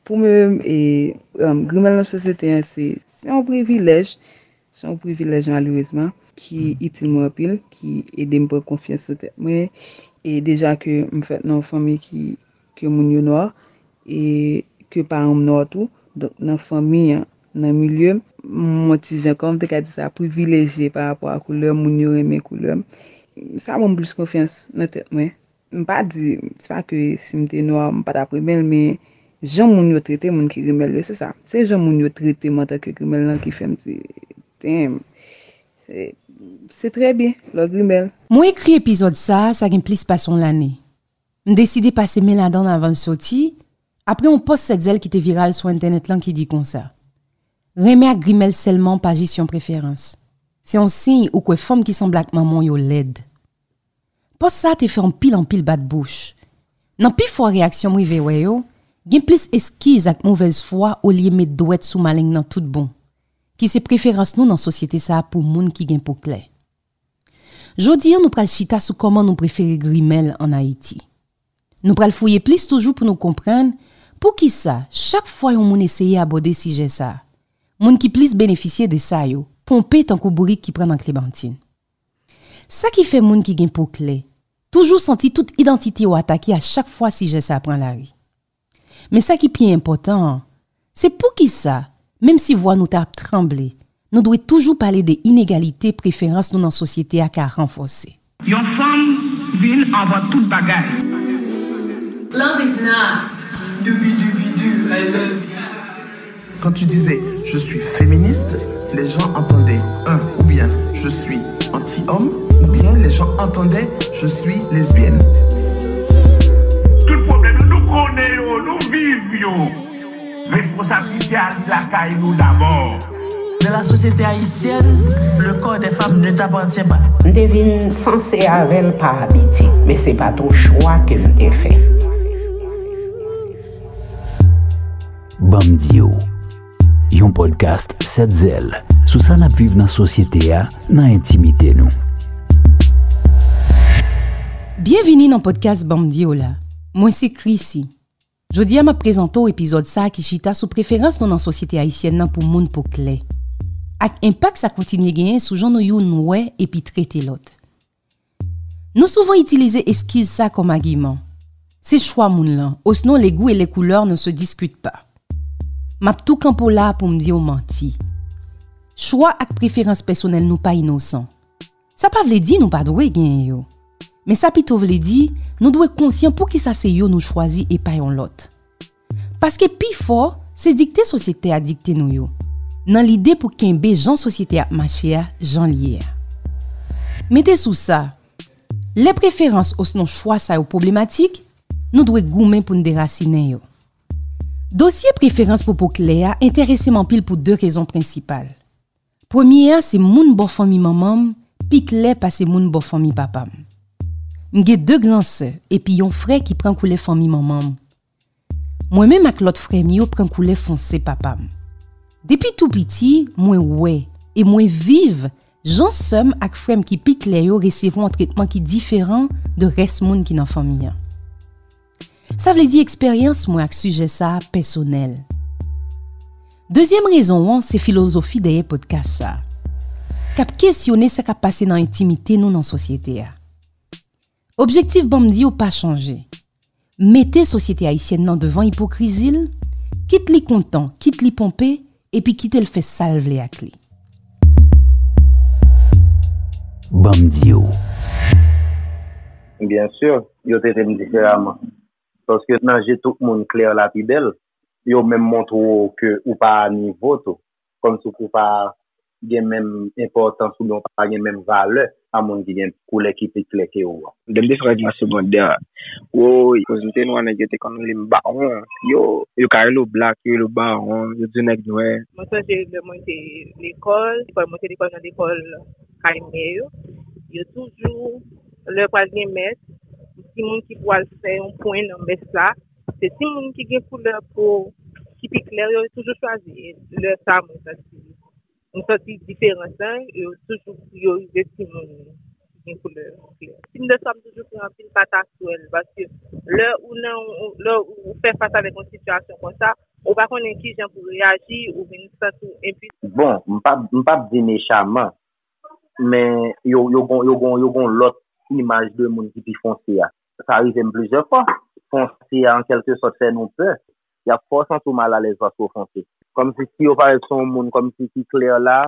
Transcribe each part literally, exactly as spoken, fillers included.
Pou mwen menm, e, um, grimèl nan sosyete an, se, se yon privilèj, se yon privilèj malerezman, ki itil mwen anpil, ki ede m pran konfyans nan tèt mwen, e deja ke m fèt nan yon fanmi ki, ke moun yo nwa, e ke paran m nwa tou. Donk, nan fanmi an, nan milye m, m yon ti jan, kòman m te ka di sa, privilejye pa rapò a koulè m, moun yo renmen koulè m. Sa ban m plis konfyans nan tèt mwen. M pa di, se pa ke si m te nwa, m pa t ap renmen l, men jan moun yo trete moun ki grimèl yo, se sa. Se jan moun yo trete m antanke grimèl lan ki fè m di, damn, se, se trè byen, lè w grimèl. Mwen ekri epizòd sa a, sa gen plis pase yon lane. M deside pase men ladan l avan l soti, apre yon pòs Sèt Zèl ki te viral sou entènèt lan ki di konsa, renmen ak grimèl sèlman pa jis yon preferans. Se yon siy ou kwè fanm ki sanble ak manman w yo lèd. Pòs sa a te fè anpil anpil bat bouch. Nan pifò reyaksyon m rive wè yo, gen plis eskiz ak movèz fwa olye met dwèt sou maleng nan tout bon, ki se preferans nou nan sosyete sa a pou moun ki gen po klè. Jodi a, nou pral chita sou kòman nou prefere grimèl ann Ayiti. Nou pral fouye plis toujou pou nou konprann poukisa, chak fwa yon moun eseye abòde sijè sa a, moun ki plis benefisye de sa yo ponpe tankou bourik ki pran nan klemantin. Sa ki fè moun ki gen po klè toujou santi tout idantite yo atake a chak fwa sijè sa a pran lari. Men sa ki pi enpòtan an, se poukisa, menm si vwa nou ta ap tranble, nou dwe toujou pale de inegalite preferans nou nan sosyete a ka ranfòse. Yon fanm vin anvan tout bagay. Love is not do be do be do, I love you. Quand tu disais je suis féministe, les gens entendaient un ou bien je suis anti-homme ou bien les gens entendaient je suis lesbienne. Tout pwoblèm yo, nou konnen yo, nou viv yo. Responsablite a li lakay nou dabò. Dans la société haïtienne, le corps des femmes ne t'appartient pas. M te vin sanse avè l pa abitye, men se pa t yon chwa ke m te fè. Ban m di w, yon podcast Sèt Zèl sou sa n ap viv nan sosyete a, nan entimite nou. Byenvini nan podcast Ban m di w la. Mwen se Chrissy. Jodi a m ap prezante w epizòd sa a ki chita sou preferans nou nan sosyete ayisyèn nan pou moun po klè, ak enpak sa kontinye genyen sou jan nou youn wè epi trete lòt. Nou souvan itilize eskiz sa kòm agiman. Se chwa moun lan, osnon les goûts et les couleurs ne se discutent pas. M ap tou kanpe w la a pou m di w manti. Chwa ak preferans pèsonèl nou pa inosan. Sa pa vle di nou pa dwe genyen yo. Men sa pito vle di, nou dwe konsyan poukisa se yo nou chwazi e pa yon lòt. Paske pifò, se dikte sosyete a dikte nou yo, nan lide pou kenbe jan sosyete a ap mache a jan l ye a. Mete sou sa, lè preferans osnon chwa sa yo pwoblematik, nou dwe goumen pou n derasinen yo. Dosye preferans pou po klè a enterese m anpil pou de rezon prensipal. Premye a se moun bò fanmi manman m pi klè pase moun bò fanmi papa m. M gen de gran sè epi yon frè ki pran koulè fanmi manman m. Mwen menm ak lòt frè m yo pran koulè fonse papa m. Depi tou piti, mwen wè e mwen viv jan sè m ak frè m ki pi klè yo resevwa yon tretman ki diferan de rès moun ki nan fanmi an. Sa vle di eksperyans mwen ak sijè sa a pèsonèl. Dezyèm rezon an se filozofi dèyè pòdkas sa a, k ap kesyone sa k ap pase nan entimite nou nan sosyete a. Objektif Ban m di w pa chanje. Mete sosyete ayisyèn nan devan ipokrizi l, kit li kontan, kit li ponpe, epi kite l fè sa l vle ak li. Ban m di w. Byen si, yo trete m diferaman. Paske nan je tout moun klè la pi bèl, yo menm montre w ke ou pa a nivo tou. Kòmsi w pa gen menm enpòtans oubyen w pa gen menm valè a moun ki gen koulè ki pi klè ke ou an. Lè m te fè règ mwen segondè, woy, koz m te nwa, nèg yo te konn rele m bawon. Yo, yo ka rele w blak, yo rele w bawon, yo di w nèg nwè. Mwen sonje lè mwen te lekòl, lekòl mwen te lekòl nan lekòl kay mè yo. Yo toujou, lè pral gen mès, timoun ki pral fè yon pwen nan mès la, se timoun ki gen koulè po ki pi klè yo toujou chwazi. Lè sa mwen santi, mwen santi diferans lan, yo toujou priorize timoun ki gen koulè klè. Tim de sa m toujou pran anpil pataswèl, paske lè ou nan, lè ou fè fas avèk yon sitiyasyon konsa, Ou pa konnen kijan pou reyaji, ou vin santi w enpwisan. Bon, m p ap, m p ap di mechaman, men yo, yo gon, yo gon, yo gon lòt imaj de moun ki pi fonse a. Sa rive m plizyè fwa. Fonse a, an kèlke sòt, fè nou pè. Y ap fè w santi w malalèz paske w fonse. Kòmsi si yo parèt se yon moun kòmsi ki klè la,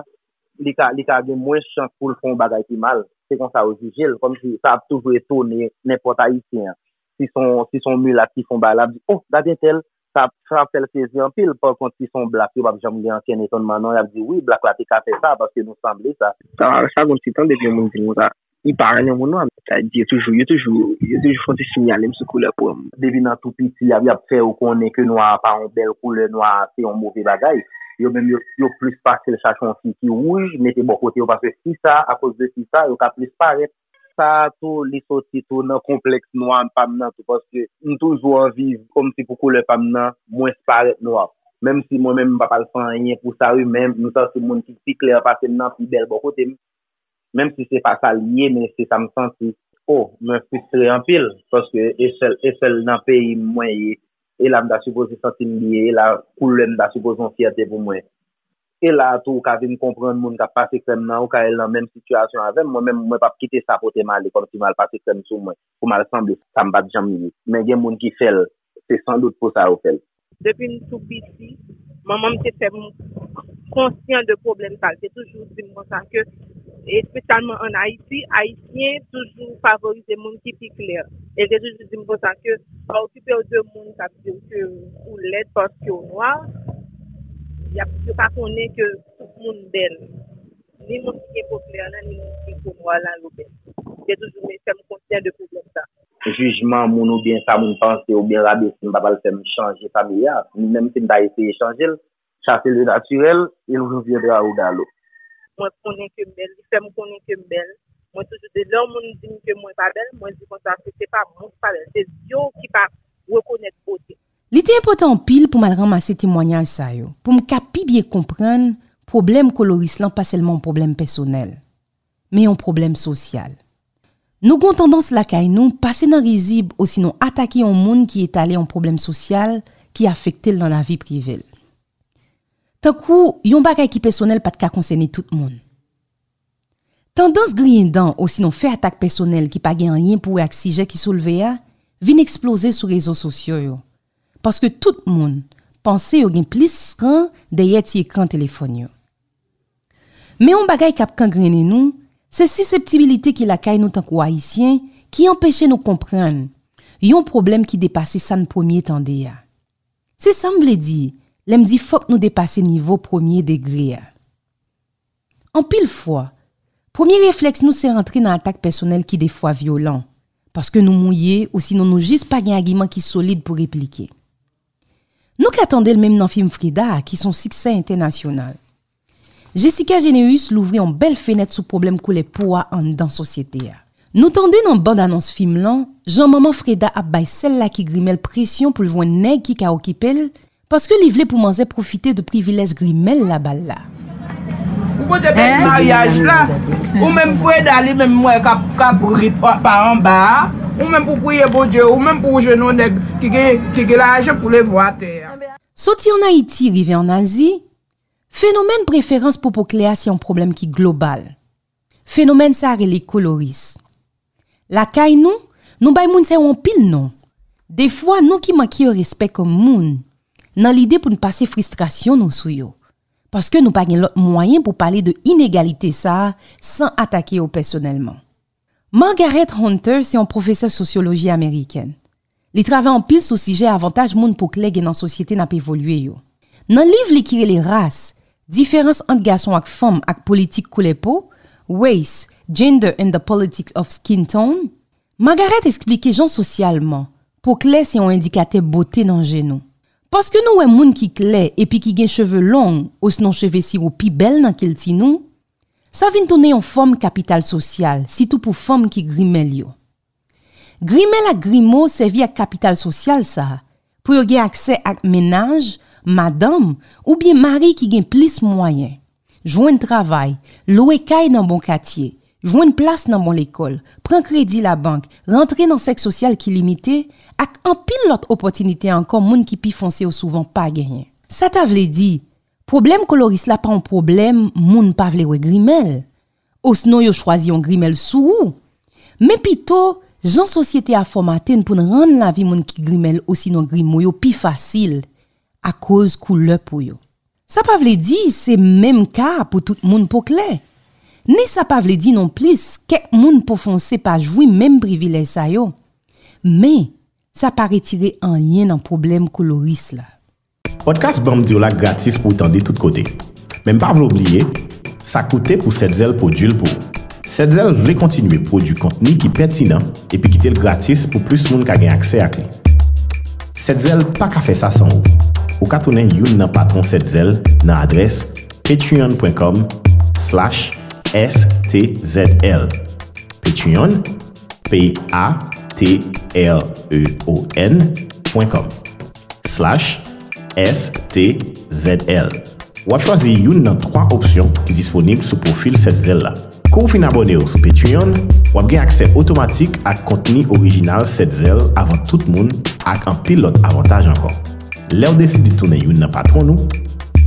li ka, li ka gen mwens chans pou l fè yon bagay ki mal. Se konsa yo jije l. Kòmsi sa ap toujou etone nenpòt Ayisyen an. Si se yon, si se yon milat ki fè yon bagay la, ap di, oh, gade entèl, sa, sa ap fè l sezi anpil. Pakont, si se yon blak, yo p ap janm gen ankenn etonman non, y ap di, wi, blak la te ka fè sa, paske nou sanble sa. Sa, sa gon ti tan depi yon moun di m konsa. Li pa renmen moun nwa. Sa di yo toujou, yo toujou, yo toujou fè ti siyale m sou koulè po m. Depi nan tou piti, y ap, y ap fè yo konnen ke nwa a pa yon bèl koulè, nwa a se yon move bagay. Yo menm, yo, yo plis pase l chache yon fi ki wouj, mete bò kote yo, paske fi sa, akoz de fi sa, yo ka plis parèt. Sa a tou, li soti tou nan konplèks nwa pa m nan tou, paske m toujou anvi kòmsi pou koulè pa m nan mwens parèt nwa. Menm si mwen menm m pa pral fè anyen pou sa wi, men m santi moun ki pi klè pase m nan pi bèl bò kote m. Menm si se pa sa l ye, men se sa m santi. O, mwen fristre anpil, paske e sèl, e sèl nan peyi m mwen ye. E la m ta sipoze santi m byen, e la koulè m ta sipoze yon fyète pou mwen. E la a tou ou ka vin konprann moun k ap pase krèm nan, ou ka al nan menm sitiyasyon avè m, mwen menm mwen p ap kite sa pote m ale kòmsi m al pase krèm sou mwen, pou m al sanble sa m pa t janm ye. Men gen moun ki fè l, se sandout pou sa yo fè l. Depi m tou piti, manman m te fè m konsyan de pwoblèm sa. Li te toujou di m konsa ke, espesyalman ann Ayiti, Ayisyen toujou favorize moun ki pi klè. E li te toujou di m konsa ke pa okipe w de moun k ap di w ke ou lèd paske w nwa. Y ap, yo pa konnen ke tout moun bèl. Ni moun ki gen po klè lan, ni moun ki gen po nwa lan, yo bèl. Li te toujou fè m konsyan de pwoblèm sa. Jijman moun oubyen sa moun panse oubyen rabese m pa pral fè m chanje fanmi a. Menm si m ta eseye chanje l, chase le naturel, il reviendra au galop. Mwen konnen ke m bèl, li fè m konnen ke m bèl. Mwen toujou di, lè yon moun di m ke mwen pa bèl, mwen di konsa ke se pa mwen ki pa bèl, se zye w ki pa rekonèt bote. Li te enpòtan anpil pou m al ranmase temwayaj sa yo, pou m ka pi byen konprann pwoblèm koloris lan pa sèlman yon pwoblèm pèsonèl, men yon pwoblèm sosyal. Nou gen yon tandans lakay nou pase nan rizib osinon atake yon moun ki etale yon pwoblèm sosyal ki afekte l nan lavi prive l. Tankou yon bagay ki pèsonèl pa t ka konsène tout moun. Tandans griyen dan osinon fè atak pèsonèl ki pa gen anyen pou wè ak sijè ki soulve a vin eksploze sou rezo sosyo yo, paske tout moun panse yo gen plis ran dèyè ti ekran telefòn yo. Men yon bagay k ap kangrennen nou, se siseptibilite ki lakay nou tankou Ayisyen ki anpeche nou konprann yon pwoblèm ki depase sa n premye tande a. Se sa m vle di lè m di fòk nou depase nivo premye degre a. Anpil fwa, premye reflèks nou se rantre nan atak pèsonèl ki defwa vyolan, paske nou mouye osinon nou jis pa gen agiman ki solid pou replike. Nou ka tande l menm nan fim Freda a ki se yon siksè entènasyonal. Jessica Généus louvri yon bèl fenèt sou pwoblèm koulè po a anndan sosyete a. Nou tande nan bann anons fim lan jan manman Freda ap bay sèl la ki grimè l presyon pou l jwenn nèg ki ka okipe l, paske li vle pou manzè pwofite de privilèj grimè l la ba l la. Ou kote bèl maryaj la? Ou menm Freda li menm m wè k ap, k ap ri pa anba a. Ou menm pou priye Bondye, ou menm pou w jwenn yon nèg ki gen, ki gen lajan pou leve w atè a. Soti ann Ayiti rive ann Azi, fenomèn preferans pou po klè a se yon pwoblèm ki global. Fenomèn sa a rele koloris. Lakay nou, nou bay moun sa yo anpil non. Defwa, nou ki manke yo respè kòm moun, nan lide pou n pase fristrasyon nou sou yo, paske nou pa gen lòt mwayen pou pale de inegalite sa a san atake yo pèsonèlman. Margaret Hunter se yon pwofesè sosyoloji amerikèn. Li travay anpil sou sijè avantaj moun po klè gen nan sosyete n ap evolye yo. Nan liv li ki rele Ras, diferans ant gason ak fanm ak politik koulè po, Race, Gender and the Politics of Skin Tone, Margaret eksplike jan sosyalman, po klè se yon endikatè bote nan je nou. Paske nou wè moun ki klè epi ki gen cheve long osnon cheve siwo pi bèl nan kilti nou, sa vin tounen yon fòm kapital sosyal, sitou pou fanm ki grimè l yo. Grimè l ak grimo sèvi ak kapital sosyal sa a pou yo gen aksè ak mennaj, madanm, oubyen mari ki gen plis mwayen, jwenn travay, lwe kay nan bon katye, jwenn plas nan bon lekòl, pran kredi labank, rantre nan sèk sosyal ki limite, ak anpil lòt opòtinite ankò moun ki pi fonse yo souvan pa genyen. Sa ta vle di, pwoblèm koloris la pa yon pwoblèm moun pa vle wè grimèl, osnon yo chwazi yon grimèl sou ou, men pito jan sosyete a fòmate n pou n rann lavi moun ki grimèl osinon grimo yo pi fasil akoz koulè po yo. Sa pa vle di se menm ka pou tout moun po klè. Ni sa pa vle di nonplis kèk moun po fonse pa jwi menm privilèj sa yo. Men, sa pa retire anyen nan pwoblèm koloris la. Pòdkas Ban m Di W la gratis pou w tande tout kote. Men m pa vle w bliye, sa koute pou Sèt Zèl pwodui l pou ou. Sèt Zèl vle kontinye pwodui kontni ki pètinan epi kite l gratis pou plis moun ka gen aksè ak li. Sèt Zèl pa ka fè sa san ou. Ou ka tounen youn nan patwon Sèt Zèl nan adrès patreon.com slash stzl. Patreon, P A T R E O N point com slash S T Z L. W ap chwazi youn nan twa opsyon ki disponib sou pwofil Sèt Zèl la. Kou w fin abòne w sou Patreon, w ap gen aksè otomatik ak kontni orijinal Sèt Zèl avan tout moun ak anpil lòt avantaj ankò. Lè w deside tounen youn nan patwon nou,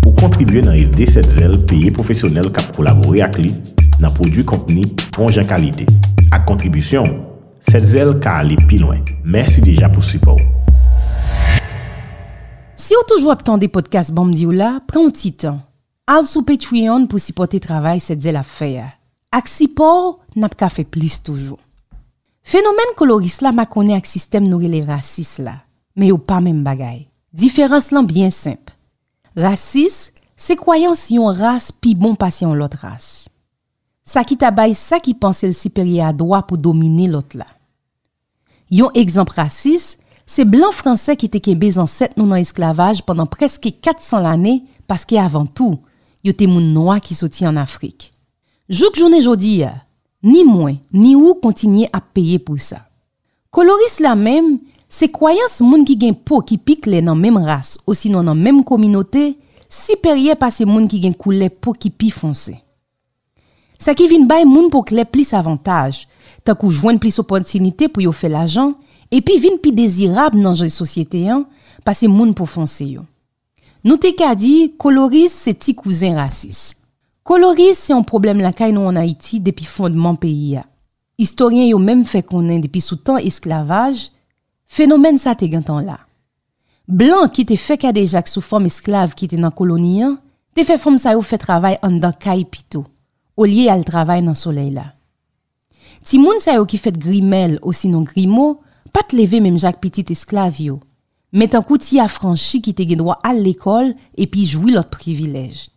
ou kontribye nan ede Sèt Zèl peye pwofesyonèl k ap kolabore ak li nan pwodui kontni bon jan kalite. Ak kontribisyon w, Sèt Zèl ka ale pi lwen. Mèsi deja pou sipò w. Si w toujou ap tande pòdkas Ban m Di W la, pran yon ti tan. Al sou Patreon pou sipòte travay Sèt Zèl ap fè a. Ak sipò w, n ap ka fè plis toujou. Fenomèn koloris la makonnen ak sistèm nou rele rasis la, men yo pa menm bagay. Diferans lan byen senp. Rasis se kwayans yon ras pi bon pase yon lòt ras. Sa ki ta bay sa ki panse l siperyè a dwa pou domine lòt la. Yon egzanp rasis, se blan fransè ki te kenbe zansèt nou nan esklavaj pandan prèske kat san lane, paske avan tou, yo te moun nwa ki soti ann Afrik. Jouk jounen jodi a, ni mwen, ni ou kontinye ap peye pou sa. Koloris la menm, se kwayans moun ki gen po ki pi klè nan menm ras osinon nan menm kominote siperyè pase moun ki gen koulè po ki pi fonse. Sa ki vin bay moun po klè plis avantaj, tankou jwenn plis opòtinite pou yo fè lajan, epi vin pi dezirab nan je sosyete an pase moun po fonse yo. Nou te ka di koloris se ti kouzen rasis. Koloris se yon pwoblèm lakay nou ann Ayiti depi fondman peyi a. Istoryen yo menm fè konnen depi sou tan esklavaj, fenomèn sa te gentan la. Blan ki te fè kadejak sou fanm esklav ki te nan koloni an, te fè fanm sa yo fè travay anndan kay pito, olye al travay nan solèy la. Timoun sa yo ki fèt grimèl osinon grimo pa t leve menm jan ak pitit esklav yo, men tankou ti afranchi ki te gen dwa al lekòl epi jwi lòt privilèj.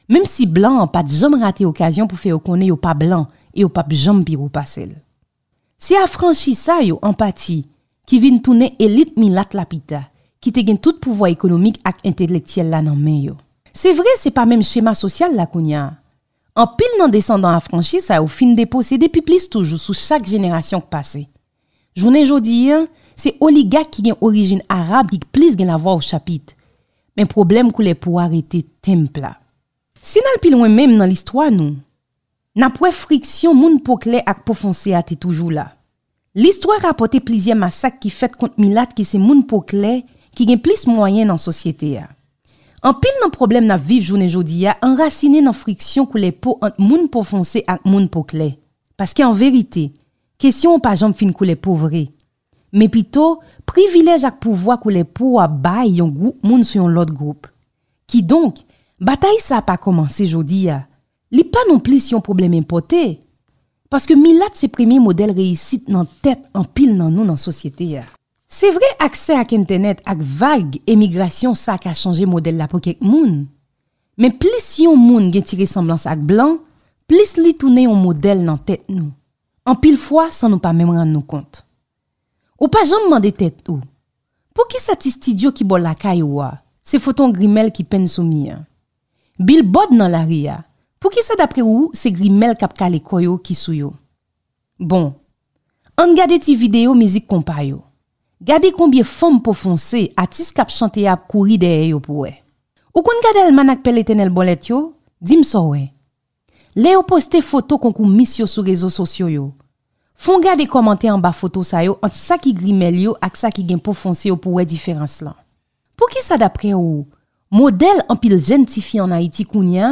Menm si blan an pa t janm rate okazyon pou fè yo konnen yo pa blan e yo p ap janm pi wo pase l. Se afranchi sa yo, an pati, ki vin tounen elit milat la pita, ki te gen tout pouvwa ekonomik ak entelektyèl la nan men yo. Se vre, se pa menm chema sosyal la kounye a. Anpil nan desandan afranchi sa yo fin deposede pi plis toujou sou chak jenerasyon k pase. Jounen jodi a, se oligak ki gen orijin arab ki plis gen lavwa o chapit. Men pwoblèm koulè po a rete tenp la. Si n al pi lwen menm nan listwa nou, n ap wè friksyon moun po klè ak po fonse a te toujou la. Listwa rapòte plizyè masak ki fèt kont milat ki se moun po klè ki gen plis mwayen nan sosyete a. Anpil nan pwoblèm n ap viv jounen jodi a anrasinen nan friksyon koulè po ant moun po fonse ak moun po klè. Paske an verite, kesyon an pa janm fin koulè po vre. Men pito, privilèj ak pouvwa koulè po a bay yon gwoup moun sou yon lòt gwoup. Kidonk, batay sa a pa kòmanse jodi a. Li pa nonplis yon pwoblèm enpòte. Paske milat se premye modèl reyisit nan tèt anpil nan nou nan sosyete a. Se vre, aksè ak entènèt ak vag emigrasyon sa ka chanje modèl la pou kèk moun. Men plis yon moun gen ti resanblans ak blan, plis li tounen yon modèl nan tèt nou. Anpil fwa san nou pa menm rann nou kont. Ou pa janm mande tèt ou, poukisa ti estidyo ki bò lakay ou a, se foto yon grimèl ki penn sou mi an? Bilbòd nan lari a, poukisa dapre ou se grimèl k ap kale kò yo ki sou yo? Bon, ann gade ti videyo mizik konpa yo. Gade konbyen fanm po fonse atis k ap chante a ap kouri dèyè yo pou wè. Ou konn gade almanak Pè Letènèl Bòlèt yo? Di m sa w wè. Lè yo poste foto konkou Miss yo sou rezo sosyo yo, Fè w gade kòmantè anba foto sa yo ant sa ki grimèl yo ak sa ki gen po fonse yo pou w wè diferans lan. Poukisa, daprè ou, modèl anpil jèn tifi ann Ayiti kounye a,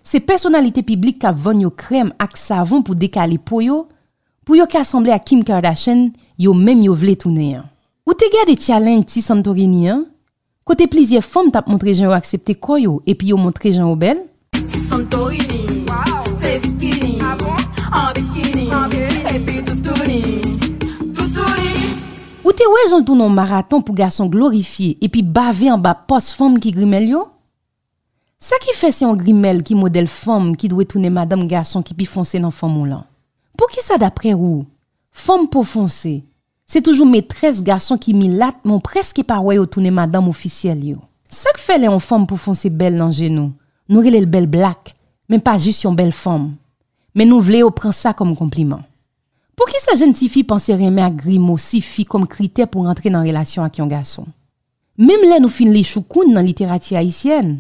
se pèsonalite piblik k ap vann yo krèm ak savon pou dekale po yo, pou yo ka sanble ak Kim Kardashian, yo menm yo vle tounen an? Ou te gade challenge Ti Santorini an, kote plizyè fanm t ap montre jan yo aksepte kò yo epi yo montre jan yo bèl? Ti Santorini, se bikini, an bikini, epi toutouni, toutouni. Ou te wè jan l tounen yon maraton pou gason glorifye epi bave anba pòs fanm ki grimèl yo? Sa ki fè se yon grimèl ki modèl fanm ki dwe tounen madanm gason ki pi fonse nan fanm ou lan? Poukisa, daprè ou, fanm po fonse se toujou metrès gason ki milat, men w prèske pa wè yo tounen madanm ofisyèl yo? Sa k fè lè yon fanm po fonse bèl nan je nou, nou rele l bèl blak, men pa jis yon bèl fanm, men nou vle yo pran sa kòm konpliman? Poukisa jèn tifi panse renmen ak grimo sifi kòm kritè pou rantre nan relasyon ak yon gason? Menm lè nou fin li Choukoun nan literati ayisyèn,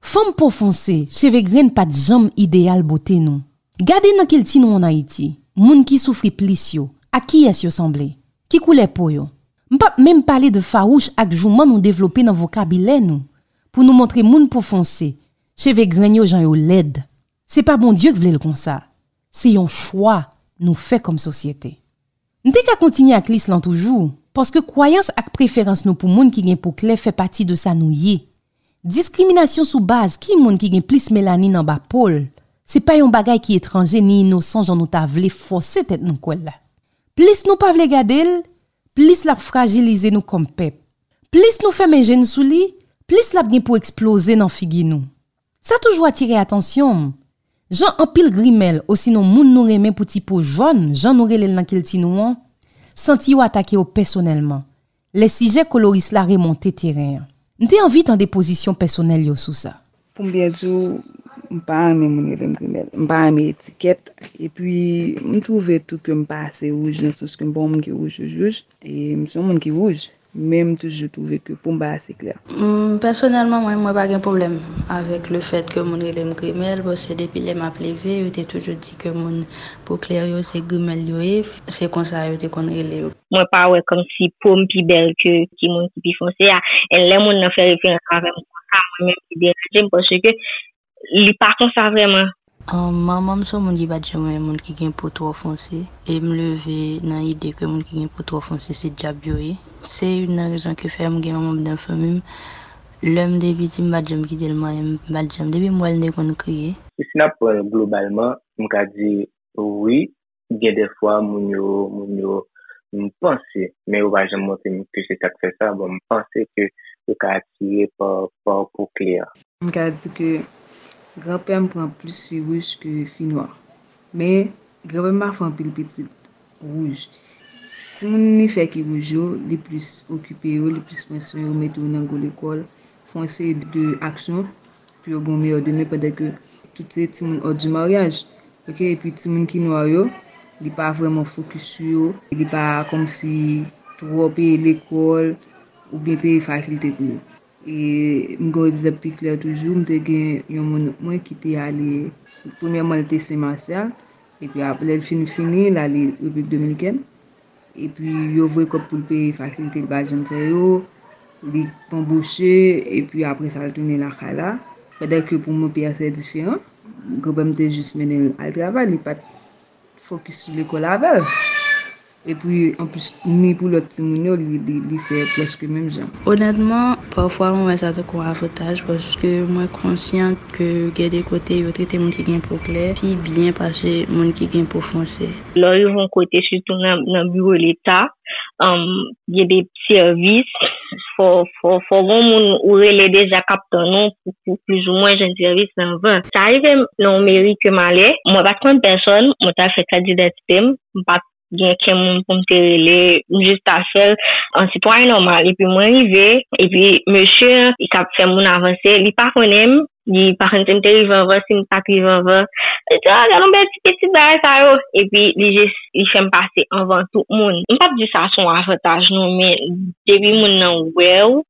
fanm po fonse, cheve grenn pa t janm ideyal bote nou. Gade nan kilti nou ann Ayiti, moun ki soufri plis yo, ak kiyès yo sanble? Ki koulè po yo? M p ap menm pale de fawouch ak jouman nou devlope nan vokabilè nou, pou nou montre moun po fonse, cheve grenn yo jan yo lèd. Se pa Bondye k vle l konsa. Se yon chwa nou fè kòm sosyete. M te ka kontinye ak lis lan toujou, paske kwayans ak preferans nou pou moun ki gen po klè fè pati de sa nou ye. Diskriminasyon sou baz ki moun ki gen plis melanin anba po l, se pa yon bagay ki etranje ni inosan jan nou ta vle fòse tèt nou kwè l la. Plis nou pa vle gade l, plis l ap frajilize nou kòm pèp. Plis nou fèmen je n sou li, plis l ap gen pou eksploze nan figi nou. Sa toujou atire atansyon m, jan anpil grimèl osinon moun nou renmen pou ti po jòn, jan nou rele l nan kilti nou an, santi yo atake yo pèsonèlman, lè sijè koloris la remonte teren an. M te anvi tande pozisyon pèsonèl yo sou sa. Pou m byen di w, m pa renmen moun rele m grimèl. M pa renmen etikèt. Epi, m twouve tou ke m pa ase wouj, nan sans ke m pa yon moun ki wouj, wouj, wouj. E m se yon moun ki wouj. Men m toujou twouve ke po m pa ase klè. Mm, pèsonèlman, mwen, mwen pa gen pwoblèm avèk le fèt ke moun rele m grimèl, paske depi lè m ap leve, yo te toujou di ke moun po klè yo, se grimèl yo ye, se konsa yo te konn rele yo. Mwen pa wè kòmsi po m pi bèl ke ki moun ki pi fonse a. E lè moun nan fè referans avè m konsa, mwen menm li deranje m paske li pa konsa vrèman. Ahn, manman m se yon moun ki pa t janm renmen moun ki gen po twò fonse, e m leve nan ide ke moun ki gen po twò fonse se dyab yo ye. Se youn nan rezon ki fè m gen yon manm nan fanmi m. Lè m te piti, m pa t janm kite l manyen m, m pa t janm. Depi m wè l, m te konn kriye. E si n ap pran l globalman, m ka di wi, gen dèfwa moun yo, moun yo, m panse, men yo pa janm montre m ke se sa k fè sa, bon, m panse ke yo ka atire pa, pa po klè. M ka di ke granpè m pran plis fi wouj ke fi nwa. Men, granpè m pa fè anpil pitit wouj. Timoun li fè ki wouj yo, li plis okipe yo, li plis pran swen yo, mete yo nan gwo lekòl, fè yon seri de aksyon pou yo gen yon meyè demen, pandan ke tout se timoun hors du mariage. Oke, epi timoun ki nwa yo, li pa vrèman fokis sou yo, li pa kòmsi twò peye lekòl oubyen peye fakilte pou yo. E m gen yon egzanp pi klè toujou, m te gen yon moun mwen ki te ale, premyèman, li te Sen Masyal, epi ap-, lè l fin fini, l ale Repiblik Dominikèn. Epi yo voye kòb pou l peye fakilte, li pa janm fè yo, li anboche, epi apre sa, l tounen lakay la. Pandan ke pou mwen, peyi a se diferan. Granpè m te jis mennen l al travay, li pa t fokis sou lekòl avè l. Epi, anplis, ni pou lòt timoun yo, li, li, li fè prèske menm jan. Onètman, pafwa mwen wè sa tankou yon avantaj, paske mwen konsyan ke gen de kote yo trete moun ki gen po klè pi byen pase moun ki gen po fonse. Lè w rive yon kote, sitou nan, nan biwo leta, um, gen de sèvis, fò, fò, fò gen moun ou rele deja k ap tann ou pou, pou plizoumwen jwenn sèvis nan van. Sa rive m nan yon meri ke m ale, mwen pa t konn pèsòn, mwen t al fè kat didantite m, m pa t gen okenn moun pou m te rele, m jis t al fè l an sitwayen nòmal. Epi mwen rive, epi mesye an, li t ap fè moun avanse, li pa konnen m, li pa konn si m te rive anvan, si m pa t rive anvan. Li di, "Ah, gade yon bèl ti pitit, bagay sa yo." Epi li jis, li fè m pase anvan tout moun. M p ap di sa se yon avantaj non, men depi moun nan wè w,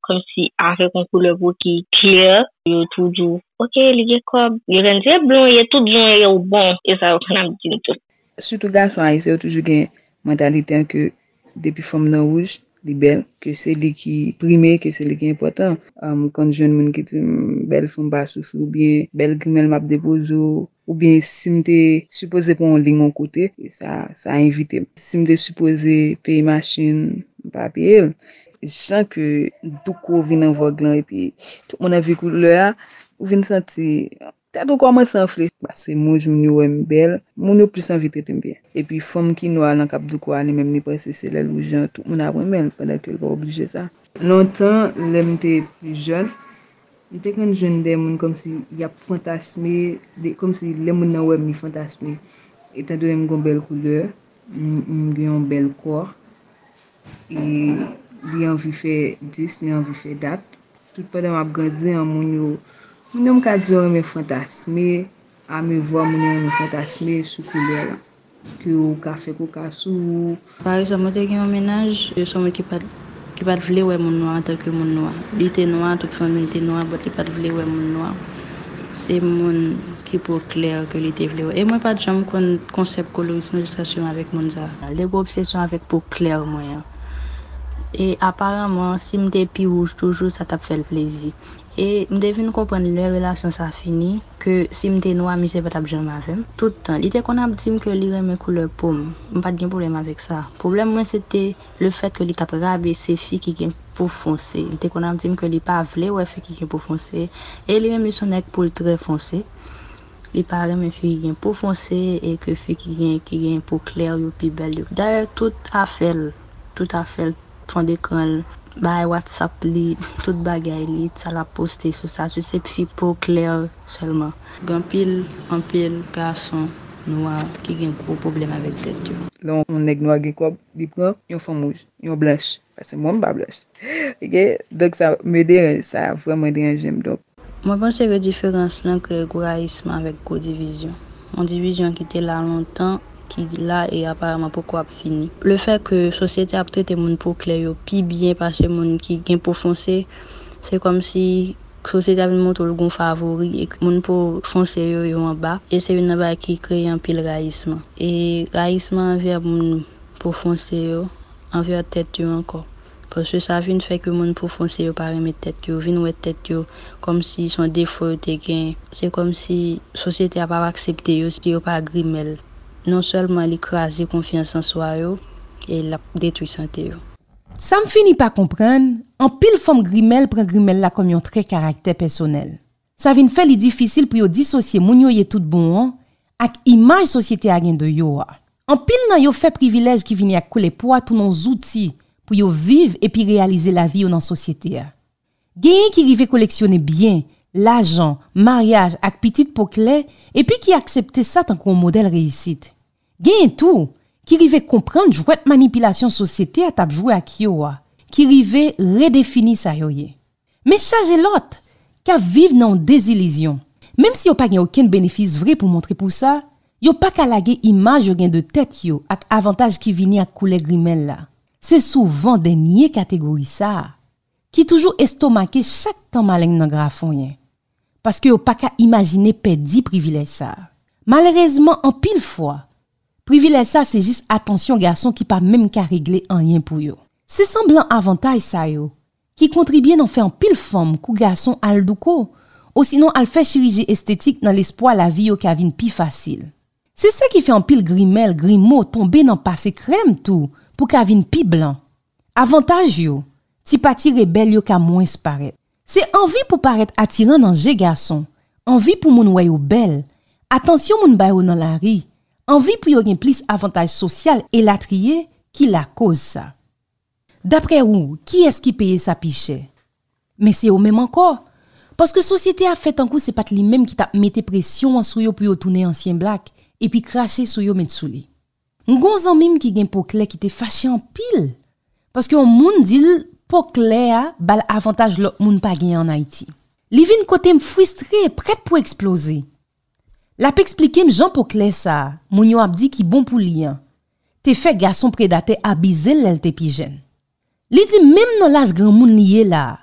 kòmsi avèk yon koulè po ki klè, yo tou di w, "Oke, li gen kòb." Yo konn di, "E blon ye, tout blon ye, ou bon." E sa yo konn ap di m tou. Sitou gason ayisyen yo toujou gen mantalite an ke depi fanm nan wouj, li bèl, ke se li ki prime, ke se li ki enpòtan. Ou konn jwenn moun ki di m bèl fanm pa soufri oubyen bèl grimèl m ap depoze w, oubyen si m te sipoze pran yon liy yon kote, e sa sa envite m. Si m te sipoze peye machin, m pa peye l. Jan ke douko vin an vòg lan epi tout moun anvi koulè a, ou vin santi tèt ou kòmanse anfle. Pase moun, moun yo wè m bèl, moun yo plis anvi trete m byen. Epi fanm ki nwa lan k ap douko a, li menm li panse se lè l wouj an tout moun ap renmen l, pandan ke l pa oblije sa. Lontan, lè m te plis jèn, m te konn jwenn de moun kòmsi y ap fantasme, de, kòmsi lè moun nan wè m, li fantasme. Etandone m gen yon bèl koulè, m, m gen yon bèl kò, e li anvi fè dis, li anvi fè dat. Tout pandan m ap grandi an, moun yo, moun yo m ka di yo renmen fantasme, amevwa moun yo renmen fantasme sou koulè lan. Ke ou ka fè koka sou ou. Pa egzanp, mwen te gen yon mennaj, se yon moun ki pa t, ki pa t vle wè moun nwa antanke moun nwa. Li te nwa, tout fanmi l te nwa, but li pa t vle wè moun nwa. Se moun ki po klè ke li te vle wè. E mwen pa t janm konn konsèp koloris nan, jiskaske m avèk moun sa. Li te gen obsesyon avèk po klè mwen an. E aparaman, si m te pi wouj toujou, sa t ap fè l plezi. E m te vin konprann lè relasyon sa fini, ke si m te nwa, misye pa t ap janm avè m. Tout tan, li te konn ap di m ke li renmen koulè po m. M pa t gen pwoblèm avèk sa. Pwoblèm mwen, se te lefèt ke li t ap rabese fi ki gen po fonse. Li te konn ap di m ke li pa vle wè fi ki gen po fonse. E li menm, li se yon nèg po l trè fonse. Li pa renmen fi ki gen po fonse e ke fi ki gen, ki gen po klè yo pi bèl yo. Dayè, tout afè l, tout afè l, fon dekran l, bagay WhatsApp li, tout bagay li, sa l ap poste sou statut, se fi po klè sèlman. Gen anpil, anpil gason nwa ki gen gwo pwoblèm avèk tèt yo. Lè yon nèg nwa gen kòb, li pran yon fanm wouj, yon blanch, paske mwen m pa blanch. Ok? Donk sa me deranje, sa vrèman deranje m. Donk, Mwen panse ke diferans lan kreye gwo rayisman avèk gwo divizyon. Yon divizyon ki te la lontan, ki la e aparaman poko ap fini. Lefèt ke sosyete ap trete moun po klè yo pi byen pase moun ki gen po fonse, se kòmsi sosyete a vin montre w l gon favori e ke moun po fonse yo, yo anba. E se youn nan bagay ki kreye anpil rayisman. E rayisman anvè moun po fonse yo, anvè tèt yo ankò. Paske sa vin fè ke moun po fonse yo pa renmen tèt yo, vin wè tèt yo kòmsi se yon defo yo te gen. Se kòmsi sosyete a p ap aksepte yo si yo pa grimèl. Non sèlman li kraze konfyans an swa yo, e l ap detwi sante yo. Sa m fini pa konprann, anpil fanm grimèl pran grimèl la kòm yon trè karaktè pèsonèl. Sa vin fè li difisil pou yo disosye moun yo ye tout bon an ak imaj sosyete a gen de yo a. Anpil nan yo fè privilèj ki vini ak koulè po a tounen yon zouti pou yo viv epi reyalize lavi yo nan sosyete a. Genyen ki rive koleksyone byen, lajan, maryaj ak pitit po klè, epi ki aksepte sa tankou yon modèl reyisit. Genyen tou ki rive konprann jwèt manipilasyon sosyete a t ap jwe ak yo a, ki rive redefini sa yo ye. Men chaje lòt k ap viv nan yon dezilizyon. Menm si yo pa gen okenn benefis vre pou montre pou sa, yo pa ka lage imaj yo gen de tèt yo ak avantaj ki vini ak koulè grimèl la. Se souvan dènye kategori sa a ki toujou estomake chak tan maleng nan grafonyen, paske yo pa ka imajine pèdi privilèj sa a. Malerezman, anpil fwa, privilèj sa se jis atansyon gason ki pa menm ka regle anyen pou yo. Se sanblan avantaj sa yo ki kontribye nan fè anpil fanm kou gason al douko, osinon al fè chiriji estetik nan lespwa lavi yo ka vin pi fasil. Se sa ki fè anpil grimèl, grimo tonbe nan pase krèm tou pou ka vin pi blan. Avantaj yo, ti pati rebèl yo ka mwens parèt. Se anvi pou parèt atiran nan je gason, anvi pou moun wè yo bèl, atansyon moun ba yo nan lari, anvi pou yo gen plis avantaj sosyal elatriye ki lakoz sa. Daprè ou, kiyès ki peye sa pi chè? Men se yo menm ankò. Paske sosyete a fè tankou se pa t li menm ki t ap mete presyon an sou yo pou yo tounen ansyen blak, epi krache sou yo met sou li. M gon zanmi m ki gen po klè ki te fache anpil, paske yon moun di l po klè a ba l avantaj lòt moun pa genyen ann Ayiti. Li vin kote m fristre, prèt pou eksploze. L ap eksplike m jan po klè sa a, moun yo ap di ki bon pou li an, te fè gason predatè abize l lè l te pi jèn. Li di menm nan laj granmoun li ye la a,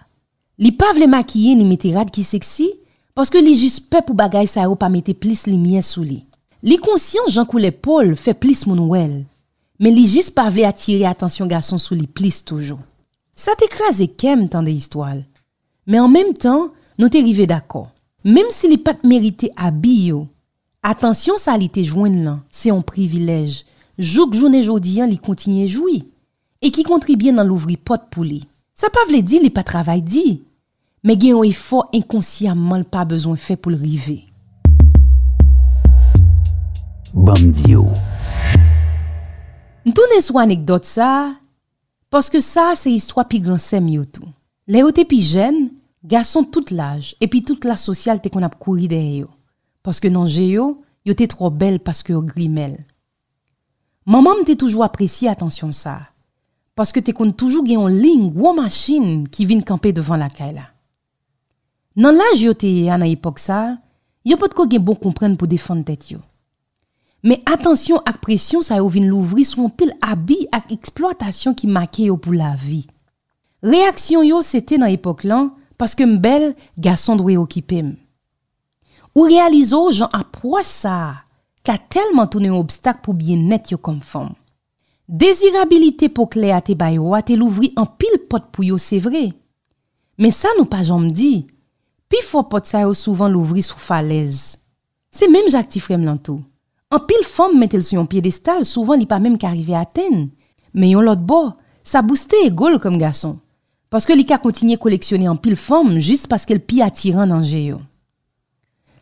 li pa vle makiye ni mete rad ki seksi, paske li jis pè pou bagay sa yo pa mete plis limyè sou li. Li konsyan jan koulè po l fè plis moun wè l, men li jis pa vle atire atansyon gason sou li plis toujou. Sa te kraze kè m tande istwa l. Men an menm tan, nou te rive dakò. Menm si li pa t merite abi yo, atansyon sa li te jwenn lan se yon privilèj, jouk jounen jodi a li kontinye jwi, e ki kontribye nan louvri pòt pou li. Sa pa vle di li pa travay di, men gen yon efò enkonsyamman l pa bezwen fè pou l rive. Ban m di w. M tounen sou anekdòt sa a, paske sa a se istwa pi gran sè m yo tou. Lè yo te pi jèn, gason tout laj epi tout klas sosyal te konn ap kouri dèyè yo, paske nan je yo, yo te twò bèl paske yo grimèl. Manman m te toujou apresye atansyon sa a, paske te konn toujou gen yon liy gwo machin ki vin kanpe devan lakay la. Nan laj yo te ye a nan epòk sa a, yo potko gen bon konprann pou defann tèt yo. Men atansyon ak presyon sa yo vin louvri sou anpil abi ak eksplwatasyon ki make yo pou lavi. Reyaksyon yo se te nan epòk lan, paske m bèl, gason dwe okipe m. Ou reyalize w jan apwòch sa a ka tèlman tounen yon obstak pou byennèt yo kòm fanm. Dezirabilite po klè a te ba yo a te louvri anpil pòt pou yo, se vre. Men sa nou pa janm di, pifò pòt sa yo souvan louvri sou falèz. Se menm jan ak ti frè m lan tou. Anpil fanm mete l sou yon pyedestal souvan li pa menm ka rive atenn. Men yon lòt bò, sa bouste ego l kòm gason, paske li ka kontinye koleksyone anpil fanm jis paske l pi atiran nan je yo.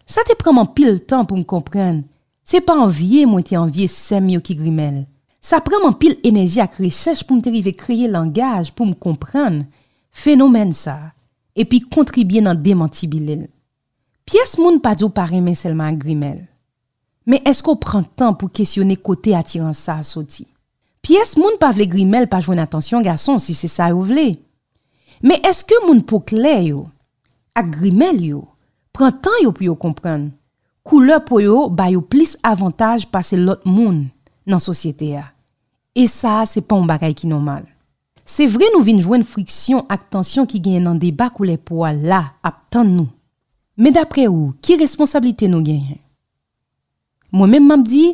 Sa te pran m anpil tan pou m konprann se pa anvye mwen te anvye sè m yo ki grimèl. Sa pran m anpil enèji ak rechèch pou m te rive kreye langaj pou m konprann fenomèn sa a, epi kontribye nan demantibile l. Pyès moun pa di w pa renmen sèlman ak grimèl. Men èske w pran tan pou kesyone kote atirans sa a soti? Pyès moun pa vle grimèl pa jwenn atansyon gason si se sa yo vle. Men èske moun po klè yo ak grimèl yo pran tan yo pou yo konprann koulè po yo ba yo plis avantaj pase lòt moun nan sosyete a? E sa a se pa yon bagay ki nòmal. Se vre nou vin jwenn friksyon ak tansyon ki genyen nan deba koulè po a la ap tann nou. Men dapre ou, ki responsablite nou genyen? Mwen menm m ap di,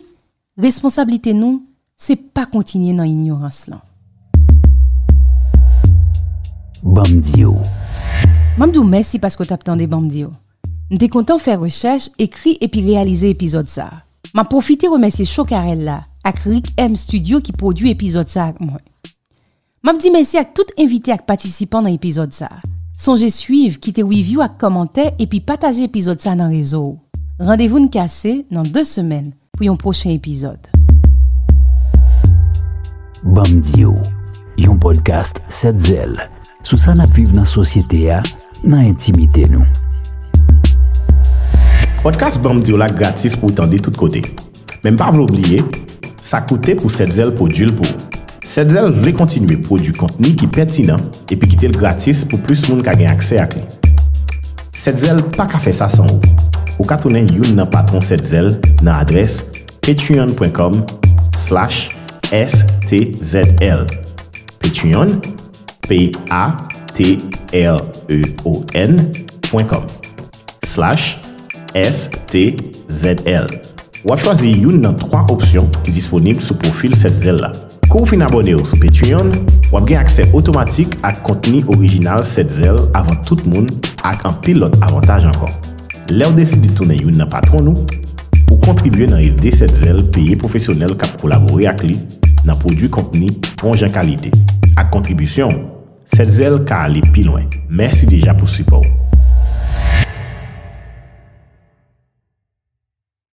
responsablite nou se pa kontinye nan inyorans lan. Ban m di w. M ap di w mèsi paske w t ap tande Ban m di w. M te kontan fè rechèch, ekri epi reyalize epizòd sa a. M ap pwofite remèsye Chokarèl la ak Rick M Studio ki pwodui epizòd sa a ak mwen. M ap di mèsi ak tout envite ak patisipan nan epizòd sa a. Sonje swiv, kite review ak kòmantè epi pataje epizòd sa a nan rezo w. Randevou n kase nan de semèn pou yon pwochen epizòd. Ban m di w, yon podcast Sèt Zèl sou sa n ap viv nan sosyete a, nan entimite nou. Podcast Ban m di w la gratis pou w tande tout kote. Men m pa vle w bliye, sa koute pou Sèt Zèl pwodui l pou ou. Sèt Zèl vle kontinye pwodui kontni ki pètinan epi kite l gratis pou plis moun ka gen aksè ak li. Sèt Zèl pa ka fè sa san ou. Ou ka tounen youn nan patwon Sèt Zèl nan adrès patreon pwen kòm slash S T Z L. Patreon, P A T R E O N pwen kòm slash S T Z L. W ap chwazi youn nan twa opsyon ki disponib sou pwofil Sèt Zèl la. Kou w fin abòne w sou Patreon, w ap gen aksè otomatik ak kontni orijinal Sèt Zèl avan tout moun ak anpil lòt avantaj ankò. Lè w deside tounen youn nan patwon nou, ou kontribye nan ede Sèt Zèl peye pwofesyonèl k ap kolabore ak li nan pwodui kontni bon jan kalite. Ak kontribisyon w, Sèt Zèl ka ale pi lwen. Mèsi deja pou sipò w.